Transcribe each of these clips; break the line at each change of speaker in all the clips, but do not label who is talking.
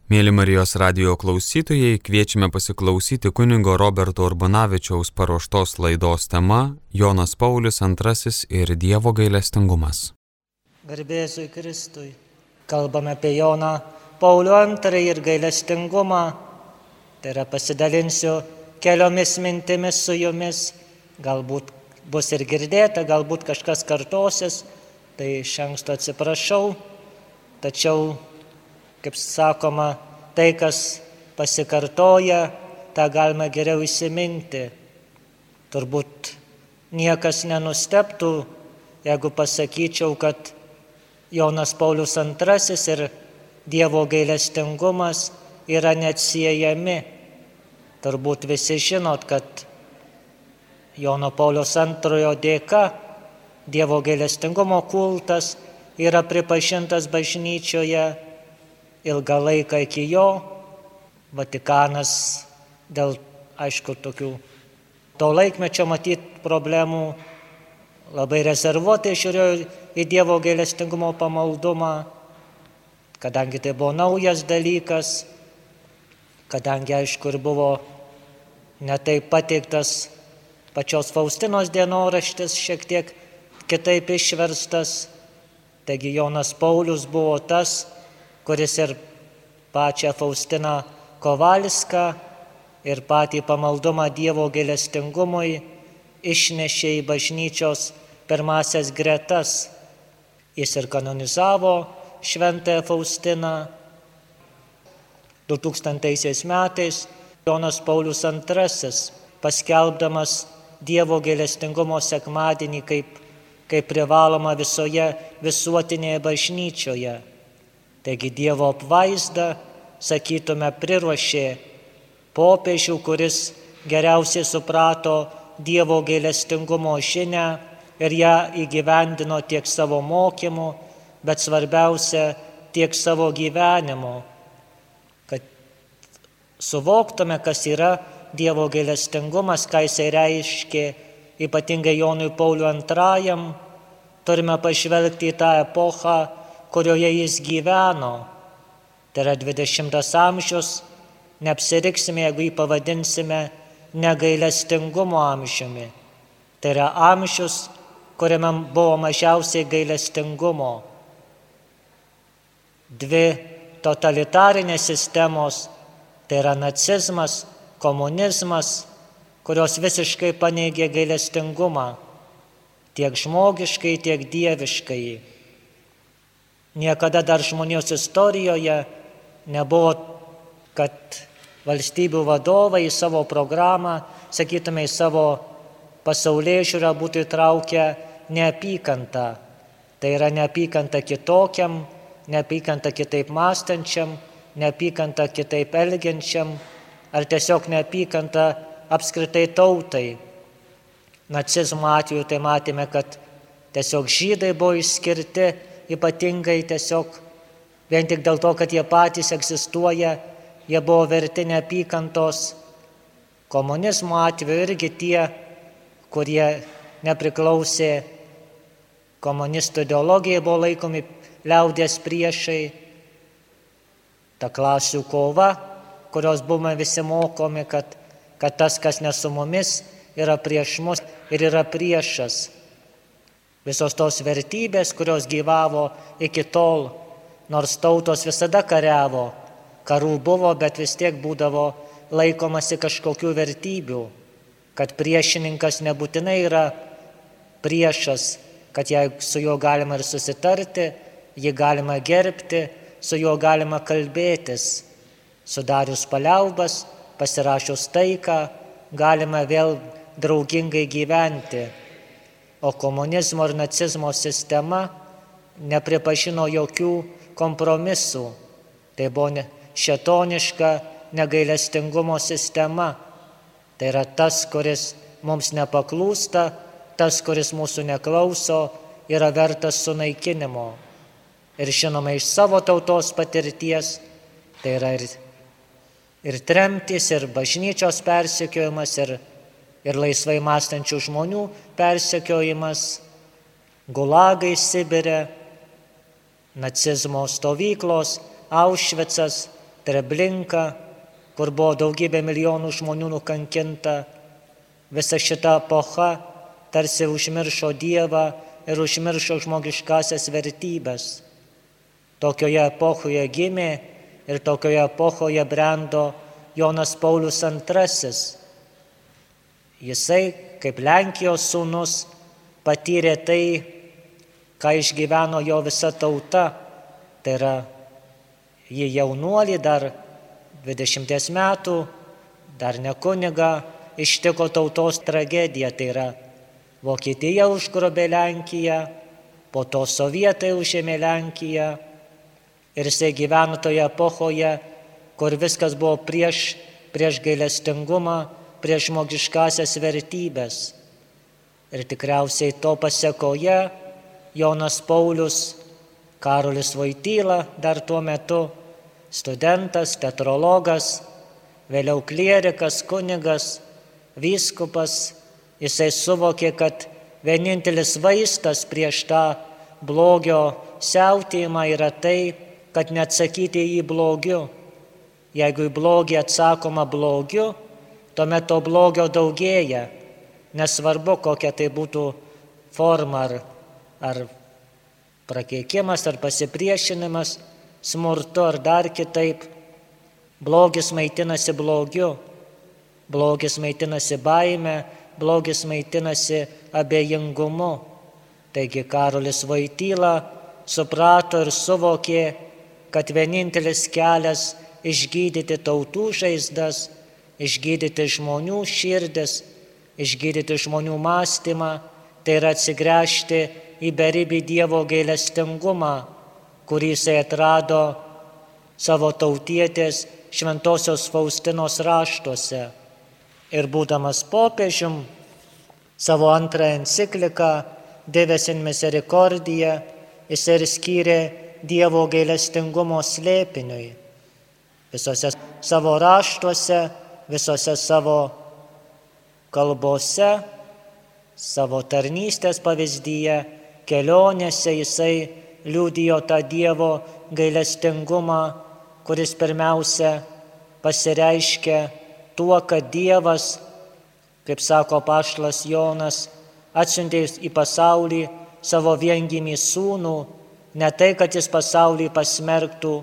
Mėly Marijos radijo klausytojai, kviečiame pasiklausyti kunigo Roberto Urbonavičiaus paruoštos laidos tema Jonas Paulius II ir Dievo gailestingumas.
Garbėzui Kristui. Kalbame apie Joną Paulių II ir gailestingumą. Tai yra pasidalinsiu keliomis mintimis su jumis. Galbūt bus ir girdėta, galbūt kažkas kartosis. Tai iš anksto atsiprašau. Tačiau, kaip sakoma, tai, kas pasikartoja, tą galime geriau įsiminti. Turbūt niekas nenustebtų, jeigu pasakyčiau, kad Jonas Paulius II ir Dievo gailestingumas yra neatsiejami. Turbūt visi žinot, kad Jono Pauliaus II dėka Dievo gailestingumo kultas yra pripažintas bažnyčioje. Ilgą laiką iki jo Vatikanas dėl, aišku, tokių to laikmečio matyt problemų labai rezervuotai žiūrėjo į Dievo gailestingumo pamaldumą, kadangi tai buvo naujas dalykas, kadangi, aišku, ir buvo netaip pateiktas pačios Faustinos dienoraštis, šiek tiek kitaip išverstas. Taigi Jonas Paulius buvo tas, kuris ir pačią Faustiną Kovalską ir patį pamaldumą Dievo gailestingumui išnešė į bažnyčios pirmasias gretas. Jis ir kanonizavo šventąją Faustiną. 2000 metais Jonas Paulius II, paskelbdamas Dievo gailestingumo sekmadienį kaip privaloma visoje visuotinėje bažnyčioje. Taigi Dievo apvaizda, sakytume, priruošė popiežių, kuris geriausiai suprato Dievo gailestingumo žinią ir ją įgyvendino tiek savo mokymu, bet svarbiausia tiek savo gyvenimu. Kad suvoktume, kas yra Dievo gailestingumas, ką jisai reiškė ypatingai Jonui Pauliui II, turime pažvelgti į tą epochą, kurioje jis gyveno. Tai yra 20 amžius, neapsiriksime, jeigu jį pavadinsime negailestingumo amžiumi. Tai yra amžius, kuriame buvo mažiausiai gailestingumo. Dvi totalitarinės sistemos, tai yra nacizmas, komunizmas, kurios visiškai paneigė gailestingumą, tiek žmogiškai, tiek dieviškai. Niekada dar žmonijos istorijoje nebuvo, kad valstybių vadovai į savo programą, sakytume, į savo pasaulėžiūrą būtų įtraukę neapykantą. Tai yra neapykanta kitokiam, neapykanta kitaip mąstančiam, neapykanta kitaip elgiančiam, ar tiesiog neapykanta apskritai tautai. Nacizmo atveju tai matėme, kad tiesiog žydai buvo išskirti, ypatingai tiesiog vien tik dėl to, kad jie patys egzistuoja, jie buvo verti neapykantos. Komunizmo atveju irgi tie, kurie nepriklausė komunistų ideologijai, buvo laikomi liaudies priešai. Ta klasių kova, kurios buvome visi mokomi, kad tas, kas ne su mumis, yra prieš mus ir yra priešas. Visos tos vertybės, kurios gyvavo iki tol, nors tautos visada kariavo, karų buvo, bet vis tiek būdavo laikomasi kažkokių vertybių, kad priešininkas nebūtinai yra priešas, kad su juo galima ir susitarti, jį galima gerbti, su juo galima kalbėtis. Sudarius paliaubas, pasirašius taiką, galima vėl draugingai gyventi. O komunizmo ir nacizmo sistema nepripažino jokių kompromisų. Tai buvo šėtoniška negailestingumo sistema. Tai yra tas, kuris mums nepaklūsta, tas, kuris mūsų neklauso, yra vertas sunaikinimo. Ir žinoma, iš savo tautos patirties, tai yra ir tremtis, ir bažnyčios persekiojimas, ir laisvai mąstančių žmonių persekiojimas, gulagai Sibire, nacizmo stovyklos, Aušvicas, Treblinka, kur buvo daugybė milijonų žmonių nukankinta. Visa šita epocha tarsi užmiršo Dievą ir užmiršo žmogiškasias vertybės. Tokioje epochoje gimė ir tokioje epochoje brendo Jonas Paulius II. Jisai, kaip Lenkijos sūnus, patyrė tai, ką išgyveno jo visa tauta. Tai yra, jį jaunuolį dar 20 metų, dar ne kunigą, ištiko tautos tragedija. Tai yra, Vokietija užgrobė Lenkiją, po to sovietai užėmė Lenkiją. Ir jisai gyveno toje epochoje, kur viskas buvo prieš gailestingumą, prieš žmogiškasias vertybės. Ir tikriausiai to pasekoje Jonas Paulius, Karolis Voityla dar tuo metu, studentas, teatrologas, vėliau klierikas, kunigas, vyskupas, jisai suvokė, kad vienintelis vaistas prieš tą blogio siautėjimą yra tai, kad neatsakyti į jį blogiu. Jeigu į blogį atsakoma blogiu, tuomet to blogio daugėja. Nesvarbu, kokia tai būtų forma, ar prakeikimas, ar pasipriešinimas, smurtu, ar dar kitaip. Blogis maitinasi blogiu, blogis maitinasi baime, blogis maitinasi abejingumu. Taigi Karolis Voityla suprato ir suvokė, kad vienintelis kelias išgydyti tautų žaizdas, išgydyti žmonių širdis, išgydyti žmonių mąstymą, tai yra atsigręžti į beribį Dievo gailestingumą, kurį jisai atrado savo tautietės Šventosios Faustinos raštuose. Ir būdamas popiežium, savo antrąją encikliką Dives in Misericordia jisai ir skyrė Dievo gailestingumo slėpiniui. Visose savo raštuose, visose savo kalbose, savo tarnystės pavyzdyje, kelionėse jisai liudijo tą Dievo gailestingumą, kuris pirmiausia pasireiškia tuo, kad Dievas, kaip sako apaštalas Jonas, atsiuntė į pasaulį savo viengimį sūnų, ne tai, kad jis pasaulį pasmerktų,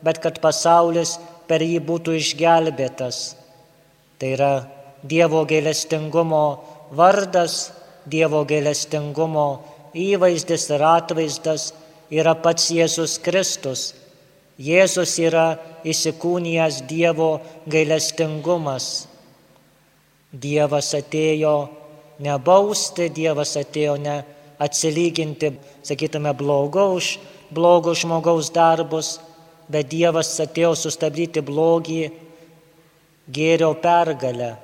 bet kad pasaulis per jį būtų išgelbėtas. Tai yra Dievo gailestingumo vardas, Dievo gailestingumo įvaizdis ir atvaizdas yra pats Jėzus Kristus. Jėzus yra įsikūnijęs Dievo gailestingumas. Dievas atėjo ne bausti, Dievas atėjo ne atsilyginti, sakytume, blogo žmogaus darbus, bet Dievas atėjo sustabdyti blogį gėrio pergalę.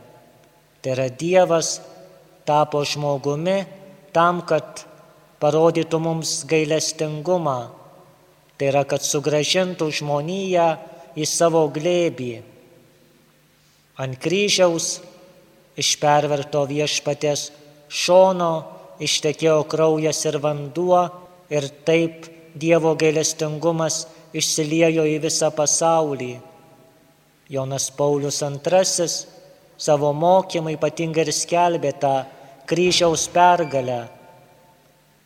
Tai yra Dievas tapo žmogumi tam, kad parodytų mums gailestingumą. Tai yra, kad sugrąžintų žmoniją į savo glėbį. Ant kryžiaus iš perverto Viešpaties šono ištekėjo kraujas ir vanduo ir taip Dievo gailestingumas išsiliejo į visą pasaulį. Jonas Paulius II savo mokymą ypatingai ir skelbė tą kryžiaus pergalę.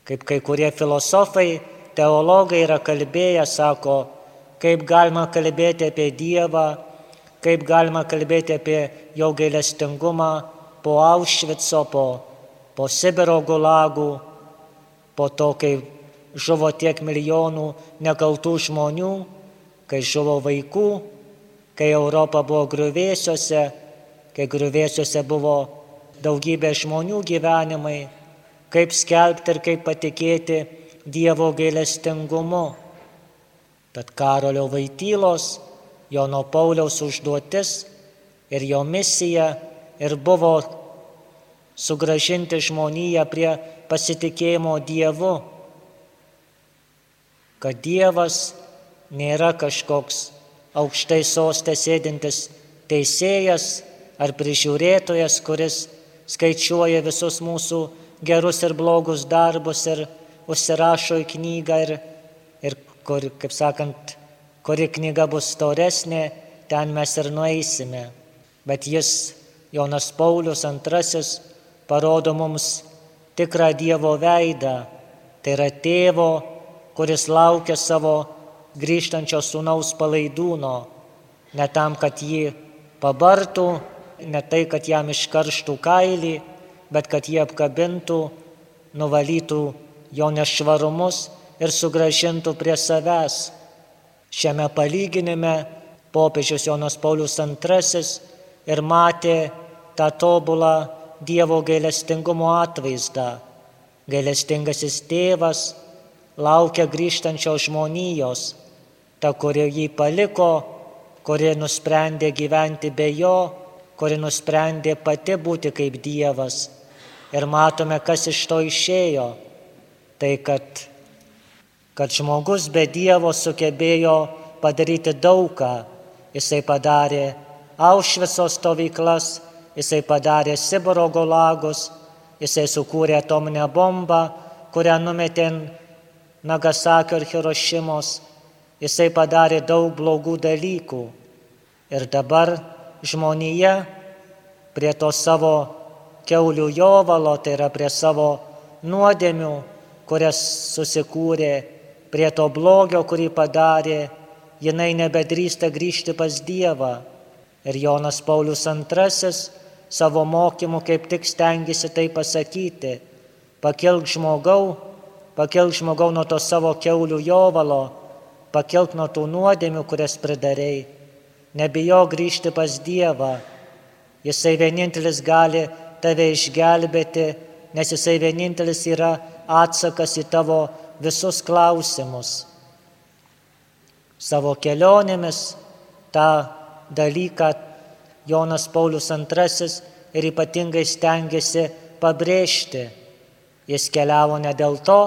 Kaip kai kurie filosofai, teologai yra kalbėję, sako, kaip galima kalbėti apie Dievą, kaip galima kalbėti apie jo gailestingumą po Aušvico, po Sibiro gulagų, po to, kai žuvo tiek milijonų nekaltų žmonių, kai žuvo vaikų, kai Europa buvo griuvėsiuose, kai griuvėsiuose buvo daugybė žmonių gyvenimai, kaip skelbti ir kaip patikėti Dievo gailestingumu. Tad Karolio Voitylos, Jono Pauliaus užduotis ir jo misija ir buvo sugrąžinti žmoniją prie pasitikėjimo Dievu, kad Dievas nėra kažkoks aukštai soste sėdintis teisėjas ar prižiūrėtojas, kuris skaičiuoja visus mūsų gerus ir blogus darbus ir užsirašo į knygą ir kur, kaip sakant, kuri knyga bus storesnė, ten mes ir nueisime. Bet jis, Jonas Paulius II, parodo mums tikrą Dievo veidą. Tai yra tėvo, kuris laukia savo grįžtančio sūnaus palaidūno. Ne tam, kad jį pabartų, ne tai, kad jam iškarštų kailį, bet kad jį apkabintų, nuvalytų jo nešvarumus ir sugrąžintų prie savęs. Šiame palyginime popiežius Jonas Paulius II ir matė tą tobulą Dievo gailestingumo atvaizdą. Gailestingasis tėvas laukia grįžtančios žmonijos, ta, kuri jį paliko, kuri nusprendė gyventi be jo, kuri nusprendė pati būti kaip Dievas. Ir matome, kas iš to išėjo. Tai, kad žmogus be Dievo sugebėjo padaryti daugą. Jisai padarė Aušvico stovyklas, jisai padarė Sibiro gulagus, jisai sukūrė atominę bombą, kurią numetė Nagasakio ir Hirošimos. Jisai padarė daug blogų dalykų. Ir dabar žmonija prie to savo kiaulių jovalo, tai yra prie savo nuodėmių, kurias susikūrė, prie to blogio, kurį padarė, jinai nebedrįsta grįžti pas Dievą. Ir Jonas Paulius II savo mokymu kaip tik stengiasi tai pasakyti. Pakilk žmogau nuo to savo kiaulių jovalo, pakilk nuo tų nuodėmių, kurias pridarei. Nebijok grįžti pas Dievą. Jisai vienintelis gali tave išgelbėti, nes jisai vienintelis yra atsakas į tavo visus klausimus. Savo kelionėmis tą dalyką Jonas Paulius II ir ypatingai stengiasi pabrėžti. Jis keliavo ne dėl to,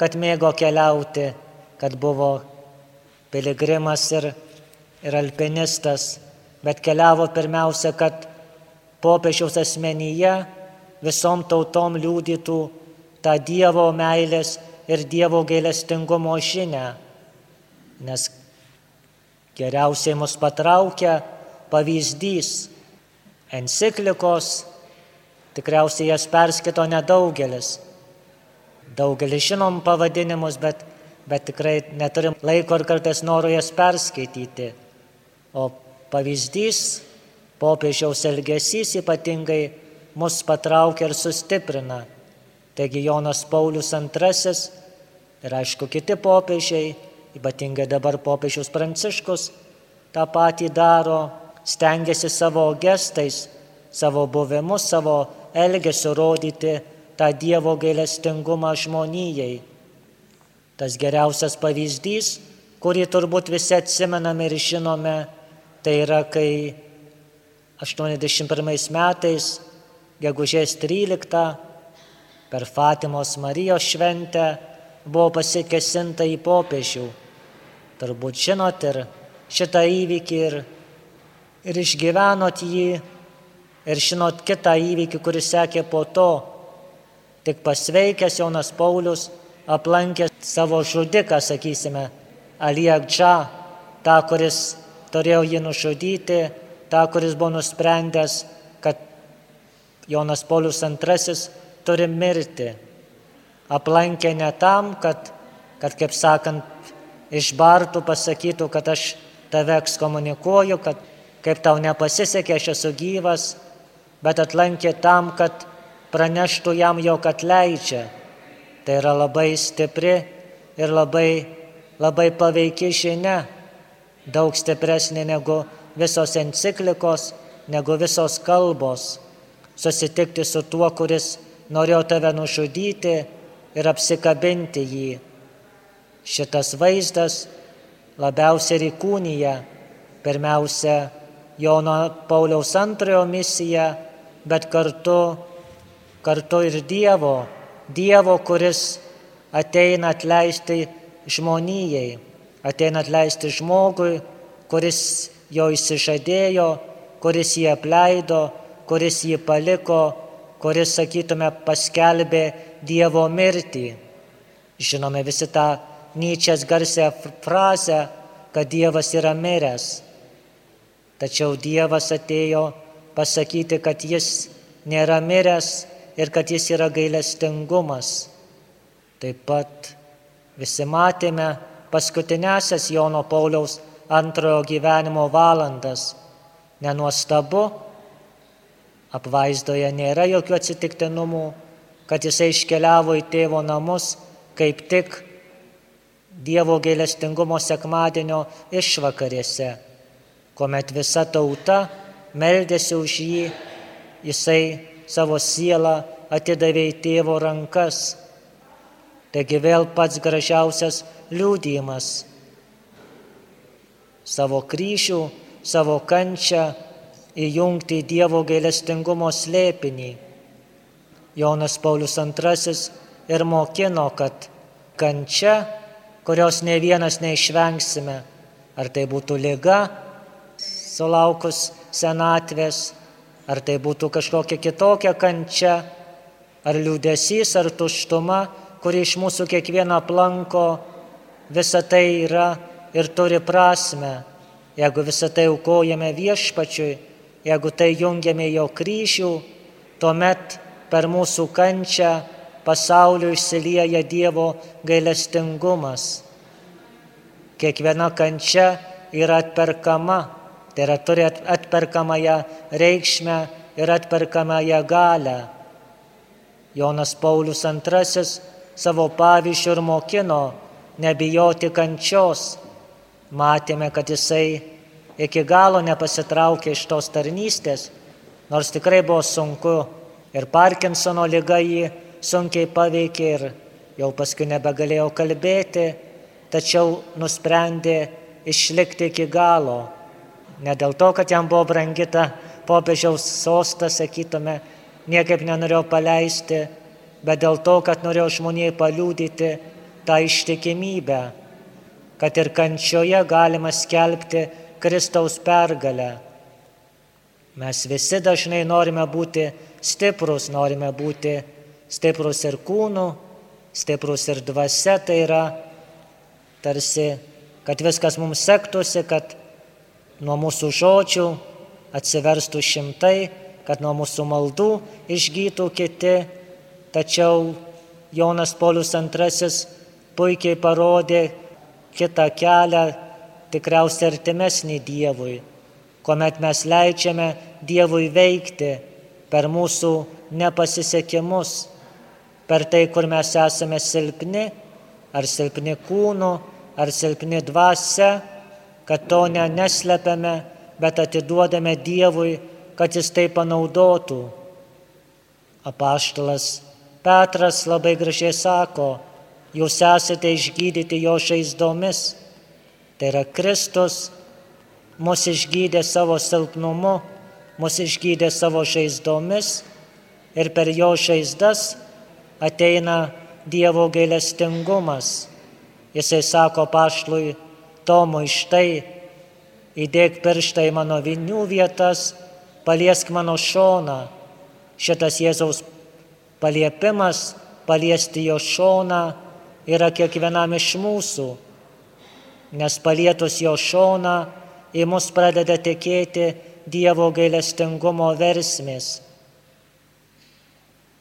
kad mėgo keliauti, kad buvo piligrimas ir alpinistas, bet keliavo pirmiausia, kad popiežiaus asmenyje visom tautom liudytų tą Dievo meilės ir Dievo gailestingumo žinią. Nes geriausiai mus patraukia pavyzdys. Enciklikos, tikriausiai jas perskaito nedaugelis. Daugelis žinom pavadinimus, bet tikrai neturim laiko ir kartais noriu jas perskaityti. O pavyzdys, popiežiaus elgesys ypatingai mus patraukia ir sustiprina. Taigi Jonas Paulius II ir aišku kiti popiežiai, ypatingai dabar popiežius Pranciškus, tą patį daro, stengiasi savo gestais, savo buvimu, savo elgesiu rodyti tą Dievo gailestingumą žmonijai. Tas geriausias pavyzdys, kurį turbūt visi atsimename ir žinome, tai yra, kai 81 metais, gegužės 13, per Fatimos Marijos šventę buvo pasikėsinta į popiežių. Turbūt žinot ir šitą įvykį ir išgyvenot jį ir žinot kitą įvykį, kuris sekė po to. Tik pasveikęs Jonas Paulius aplankė savo žudiką, sakysime, Ali Agdžą, tą, kuris turėjo jį nužudyti, tą, kuris buvo nusprendęs, kad Jonas Paulius II turi mirti. Aplankė ne tam, kad kaip sakant, išbartų, pasakytų, kad aš tave ekskomunikuoju, kad kaip tau nepasisekė, aš esu gyvas, bet atlankė tam, kad praneštų jam, jog atleidžia. Tai yra labai stipri ir labai paveiki žinia, daug stipresnė negu visos enciklikos, negu visos kalbos. Susitikti su tuo, kuris norėjo tave nužudyti ir apsikabinti jį. Šitas vaizdas labiausiai įkūnija pirmiausia Jono Pauliaus II misiją, bet kartu ir Dievo, kuris ateina atleisti žmonijai, ateina atleisti žmogui, kuris jo išsižadėjo, kuris jį apleido, kuris jį paliko, kuris, sakytume, paskelbė Dievo mirtį. Žinome visi tą Nyčės garsią frazę, kad Dievas yra miręs. Tačiau Dievas atėjo pasakyti, kad jis nėra miręs ir kad jis yra gailestingumas. Taip pat visi matėme paskutinėsias Jono Pauliaus antrojo gyvenimo valandas. Nenuostabu, apvaizdoje nėra jokių atsitiktinumų, kad jisai iškeliavo į tėvo namus kaip tik Dievo gailestingumo sekmadienio išvakarėse, kuomet visa tauta meldėsi už jį, jisai savo sielą atidavė į tėvo rankas. Taigi vėl pats gražiausias liudijimas. Savo kryžių, savo kančią įjungti į Dievo gailestingumo slėpinį. Jonas Paulius II ir mokino, kad kančia, kurios ne vienas neišvengsime, ar tai būtų liga, sulaukus senatvės, ar tai būtų kažkokia kitokia kančia, ar liūdesys, ar tuštuma, kuri iš mūsų kiekvieną aplanko, visa tai yra ir turi prasmę. Jeigu visą tai aukojame Viešpačiui, jeigu tai jungiame jo kryžių, tuomet per mūsų kančią pasauliu išsilieja Dievo gailestingumas. Kiekviena kančia yra atperkama, tai yra turi atperkamąją reikšmę ir atperkamąją galią. Jonas Paulius II savo pavyzdžiu ir mokino nebijoti kančios. Matėme, kad jisai iki galo nepasitraukė iš tos tarnystės, nors tikrai buvo sunku ir Parkinsono liga jį sunkiai paveikė ir jau paskui nebegalėjo kalbėti, tačiau nusprendė išlikti iki galo. Ne dėl to, kad jam buvo brangi ta popiežiaus sostas, sakytume, niekaip nenorėjo paleisti, bet dėl to, kad norėjo žmonijai paliudyti tą ištikimybę, kad ir kančioje galima skelbti Kristaus pergalę. Mes visi dažnai norime būti stiprus, norime būti stiprus ir kūnu, stiprus ir dvasia, tai yra tarsi, kad viskas mums sektųsi, kad nuo mūsų žodžių atsiverstų šimtai, kad nuo mūsų maldų išgytų kiti. Tačiau Jonas Paulius II puikiai parodė kitą kelią, tikriausiai artimesnį Dievui, kuomet mes leidžiame Dievui veikti per mūsų nepasisekimus, per tai, kur mes esame silpni, ar silpni kūnu, ar silpni dvasia, kad to neslepiame, bet atiduodame Dievui, kad jis tai panaudotų. Apaštalas Petras labai gražiai sako, jūs esate išgydyti jo žaizdomis. Tai yra Kristus mus išgydė savo silpnumu, mus išgydė savo žaizdomis ir per jo žaizdas ateina Dievo gailestingumas. Jisai sako apaštalui Tomui, štai, įdėk pirštą į mano vinių vietas, paliesk mano šoną. Šitas Jėzaus paliepimas, paliesti jo šoną, yra kiekvienam iš mūsų, nes palietus jo šoną į mus pradeda tekėti Dievo gailestingumo versmės.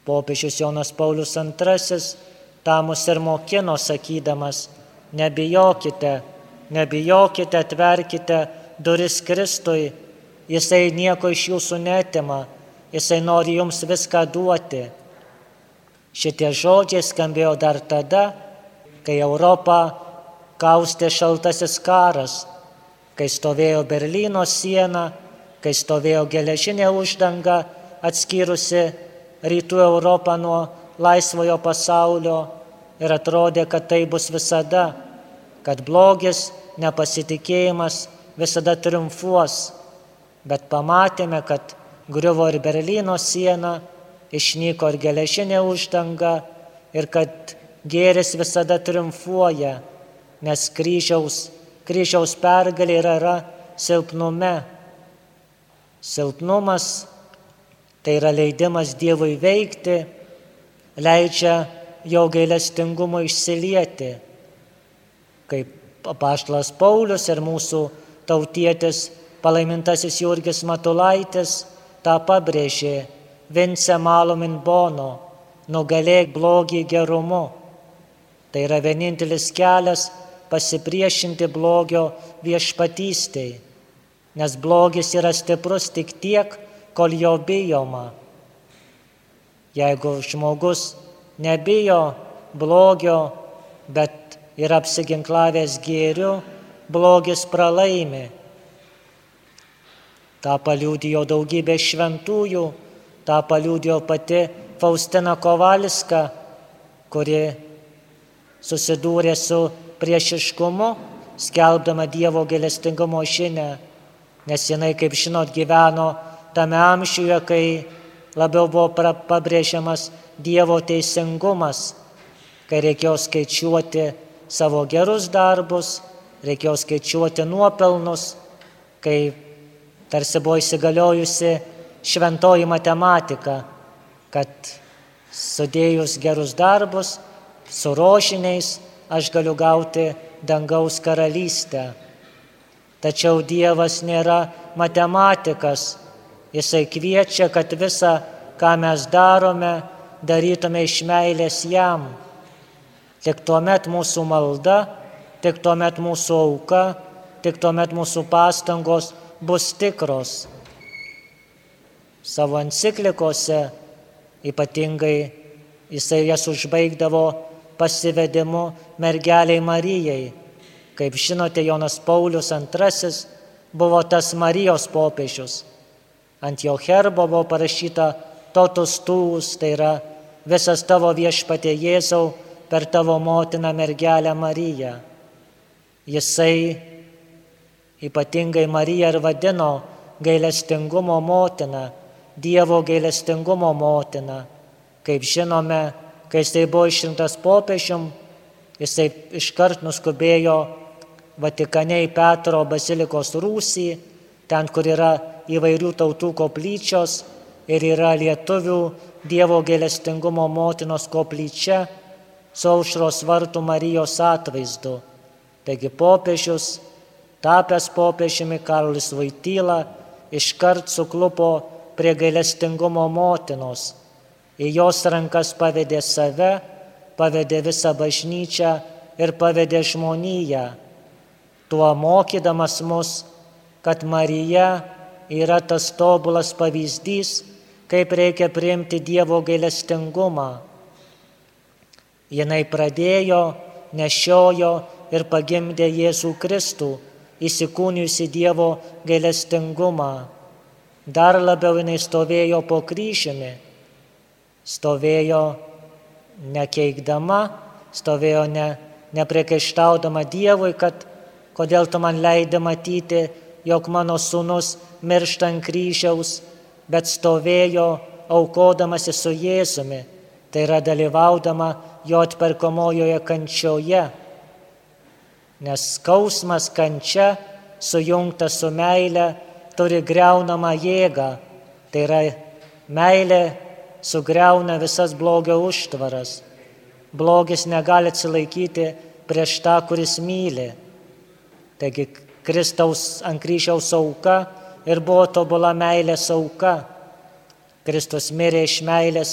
Popiežius Jonas Paulius II tą mus ir mokino, sakydamas, nebijokite, nebijokite, atverkite duris Kristui, jisai nieko iš jūsų neatima, jisai nori jums viską duoti. Šitie žodžiai skambėjo dar tada, kai Europą kaustė šaltasis karas, kai stovėjo Berlyno siena, kai stovėjo geležinė uždanga atskyrusi rytų Europą nuo laisvojo pasaulio ir atrodė, kad tai bus visada, kad blogis, nepasitikėjimas visada triumfuos. Bet pamatėme, kad griuvo ir Berlyno siena, išnyko ir geležinė uždanga ir kad gėris visada triumfuoja, nes kryžiaus pergalė yra silpnume. Silpnumas tai yra leidimas Dievui veikti, leidžia jo gailestingumo išsilieti. Kaip apaštalas Paulius ir mūsų tautietis palaimintasis Jurgis Matulaitis tą pabrėžė: Vince malum in bono, nugalėk blogį gerumu. Tai yra vienintelis kelias pasipriešinti blogio viešpatystei, nes blogis yra stiprus tik tiek, kol jo bijoma. Jeigu žmogus nebijo blogio, bet yra apsiginklavęs gėriu, blogis pralaimi. Ta paliudijo daugybė šventųjų, ta paliudijo pati Faustina Kovalska, kuri susidūrė su priešiškumu, skelbdama Dievo gailestingumo žinią, nes jinai, kaip žinot, gyveno tame amžiuje, kai labiau buvo pabrėžiamas Dievo teisingumas, kai reikėjo skaičiuoti savo gerus darbus, reikėjo skaičiuoti nuopelnus, kai tarsi buvo įsigaliojusi šventoji matematika, kad sudėjus gerus darbus su rožiniais aš galiu gauti dangaus karalystę. Tačiau Dievas nėra matematikas. Jisai kviečia, kad visa, ką mes darome, darytume iš meilės jam. Tik tuomet mūsų malda, tik tuomet mūsų auka, tik tuomet mūsų pastangos bus tikros. Savo enciklikose ypatingai jisai jas užbaigdavo pasivedimu mergeliai Marijai. Kaip žinote, Jonas Paulius II buvo tas Marijos popiežius. Ant jo herbo buvo parašyta totus tuus, tai yra visas tavo viešpatie Jėzau per tavo motiną mergelę Mariją. Jisai ypatingai Mariją ir vadino gailestingumo motina, Dievo gailestingumo motina. Kaip žinome, kai jisai buvo išrinktas popiežium, jisai iškart nuskubėjo Vatikane į Petro bazilikos rūsį, ten, kur yra įvairių tautų koplyčios ir yra lietuvių Dievo gailestingumo motinos koplyčia su Aušros vartų Marijos atvaizdu. Taigi popiežius, tapęs popiežiumi Karolis Voityla, iškart suklupo prie gailestingumo motinos. Į jos rankas pavedė save, pavedė visą bažnyčią ir pavedė žmoniją, tuo mokydamas mus, kad Marija yra tas tobulas pavyzdys, kaip reikia priimti Dievo gailestingumą. Jinai pradėjo, nešiojo ir pagimdė Jėzų Kristų, įsikūnijusi Dievo gailestingumą. Dar labiau jinai stovėjo po kryžiumi, stovėjo nekeikdama, stovėjo nepriekaištaudama Dievui, kad kodėl tu man leidi matyti, jog mano sūnus miršta ant kryžiaus, bet stovėjo aukodamasi su Jėzumi, tai yra dalyvaudama jo atperkamojoje kančioje. Nes skausmas, kančia, sujungta su meile, turi griaunamą jėgą, tai yra meilė sugriauna visas blogio užtvaras. Blogis negali atsilaikyti prieš tą, kuris myli. Taigi Kristaus ant kryžiaus auka ir buvo tobula meilės auka. Kristus mirė iš meilės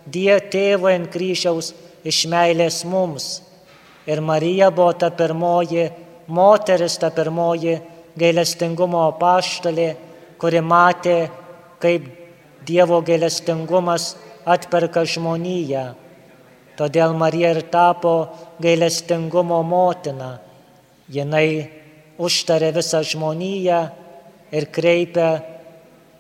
Tėvui ant kryžiaus, iš meilės mums. Ir Marija buvo ta pirmoji moteris, ta pirmoji gailestingumo apaštalė, kuri matė, kaip Dievo gailestingumas atperka žmoniją. Todėl Marija ir tapo gailestingumo motina. Jinai užtarė visą žmoniją ir kreipia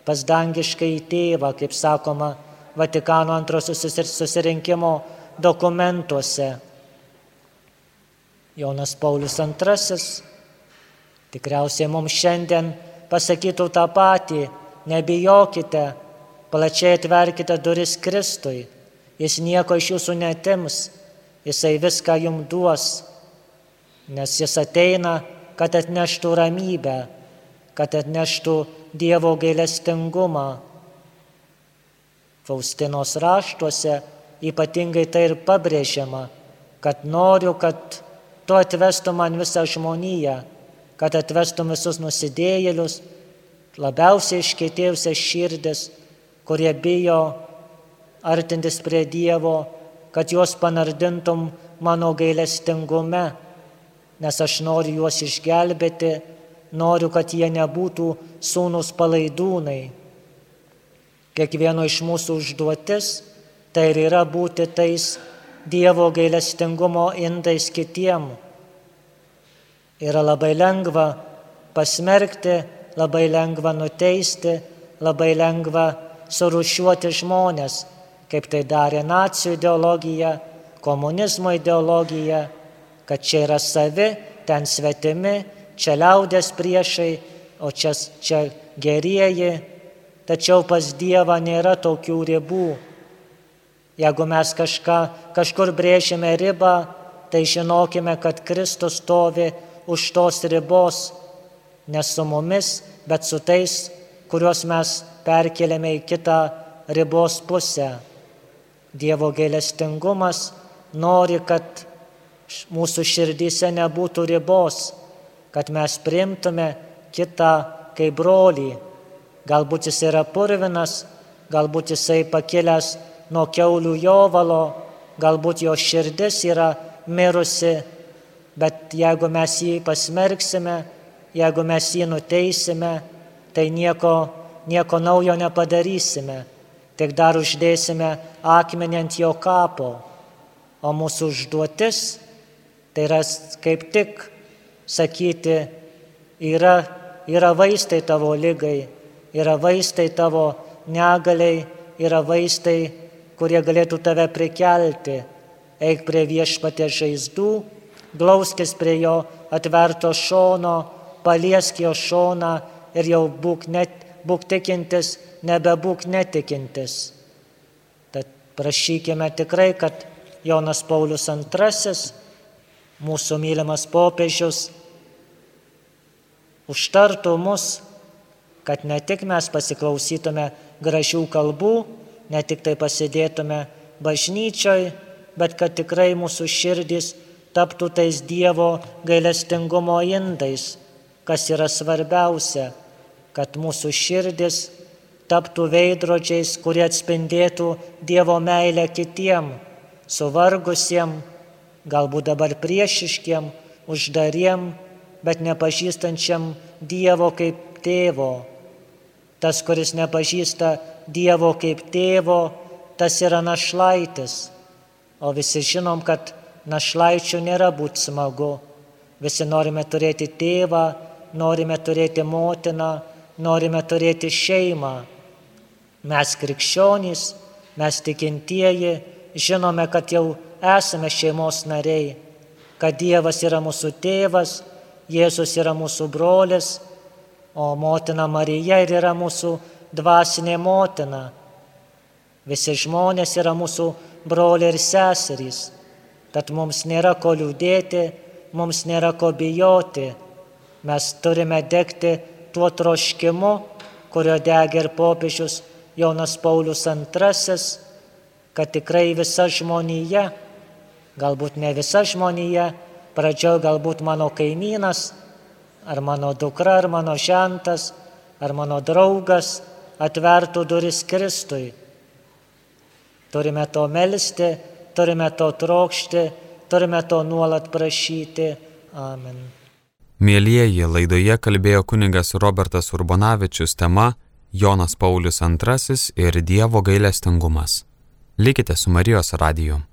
pas dangiškąjį tėvą, kaip sakoma Vatikano antrosios susirinkimo dokumentuose. Jonas Paulius II tikriausiai mums šiandien pasakytų tą patį: nebijokite, plačiai atverkite duris Kristui, jis nieko iš jūsų neatims, jisai viską jums duos, nes jis ateina, kad atneštų ramybę, kad atneštų Dievo gailestingumą. Faustinos raštuose ypatingai tai ir pabrėžiama, kad noriu, kad tu atvestum man visą žmoniją, kad atvestum visus nusidėjėlius, labiausiai iškietėjusias širdis, kurie bijo artintis prie Dievo, kad juos panardintum mano gailestingume, nes aš noriu juos išgelbėti, noriu, kad jie nebūtų sūnūs palaidūnai. Kiekvieno iš mūsų užduotis tai ir yra būti tais Dievo gailestingumo indais kitiem. Yra labai lengva pasmerkti, labai lengva nuteisti, labai lengva surūšiuoti žmonės, kaip tai darė nacių ideologija, komunizmo ideologija, kad čia yra savi, ten svetimi, čia liaudės priešai, o čia gerieji. Tačiau pas Dievą nėra tokių ribų. Jeigu mes kažkur brėžime ribą, tai žinokime, kad Kristus stovi už tos ribos, ne su mumis, bet su tais, kuriuos mes perkeliame į kitą ribos pusę. Dievo gailestingumas nori, kad mūsų širdyse nebūtų ribos, kad mes priimtume kitą kaip brolį. Galbūt jis yra purvinas, galbūt jisai pakilęs nuo kiaulių jovalo, galbūt jo širdis yra mirusi, bet jeigu mes jį pasmerksime, jeigu mes jį nuteisime, tai nieko naujo nepadarysime, tik dar uždėsime akmenį ant jo kapo. O mūsų užduotis tai yra kaip tik sakyti, yra vaistai tavo ligai, yra vaistai tavo negaliai, yra vaistai, kurie galėtų tave prikelti. Eik prie Viešpaties žaizdų, glauskis prie jo atverto šono, paliesk jo šoną ir jau būk tikintis, nebebūk netikintis. Tad prašykime tikrai, kad Jonas Paulius II, mūsų mylimas popiežius, užtartų mus, kad ne tik mes pasiklausytume gražių kalbų, ne tik tai pasidėtume bažnyčioj, bet kad tikrai mūsų širdys taptų tais Dievo gailestingumo indais, kas yra svarbiausia, kad mūsų širdys taptų veidrodžiais, kurie atspindėtų Dievo meilę kitiem, suvargusiem, galbūt dabar priešiškiem, uždariem, bet nepažįstančiam Dievo kaip tėvo. Tas, kuris nepažįsta Dievo kaip tėvo, tas yra našlaitis. O visi žinom, kad našlaičių nėra būti smagu. Visi norime turėti tėvą, norime turėti motiną, norime turėti šeimą. Mes krikščionys, mes tikintieji, žinome, kad jau esame šeimos nariai, kad Dievas yra mūsų tėvas, Jėzus yra mūsų brolis, o motina Marija ir yra mūsų dvasinė motina. Visi žmonės yra mūsų broliai ir seserys, tad mums nėra ko liūdėti, mums nėra ko bijoti. Mes turime degti tuo troškimu, kurio degė ir popiežius Jonas Paulius II, kad tikrai visa žmonija, galbūt ne visa žmonija, pradžioj galbūt mano kaimynas, ar mano dukra, ar mano žentas, ar mano draugas atvertų duris Kristui. Turime to melsti, turime to trokšti, turime to nuolat prašyti. Amen.
Mielieji, laidoje kalbėjo kunigas Robertas Urbonavičius, tema Jonas Paulius II ir Dievo gailestingumas. Likite su Marijos radiju.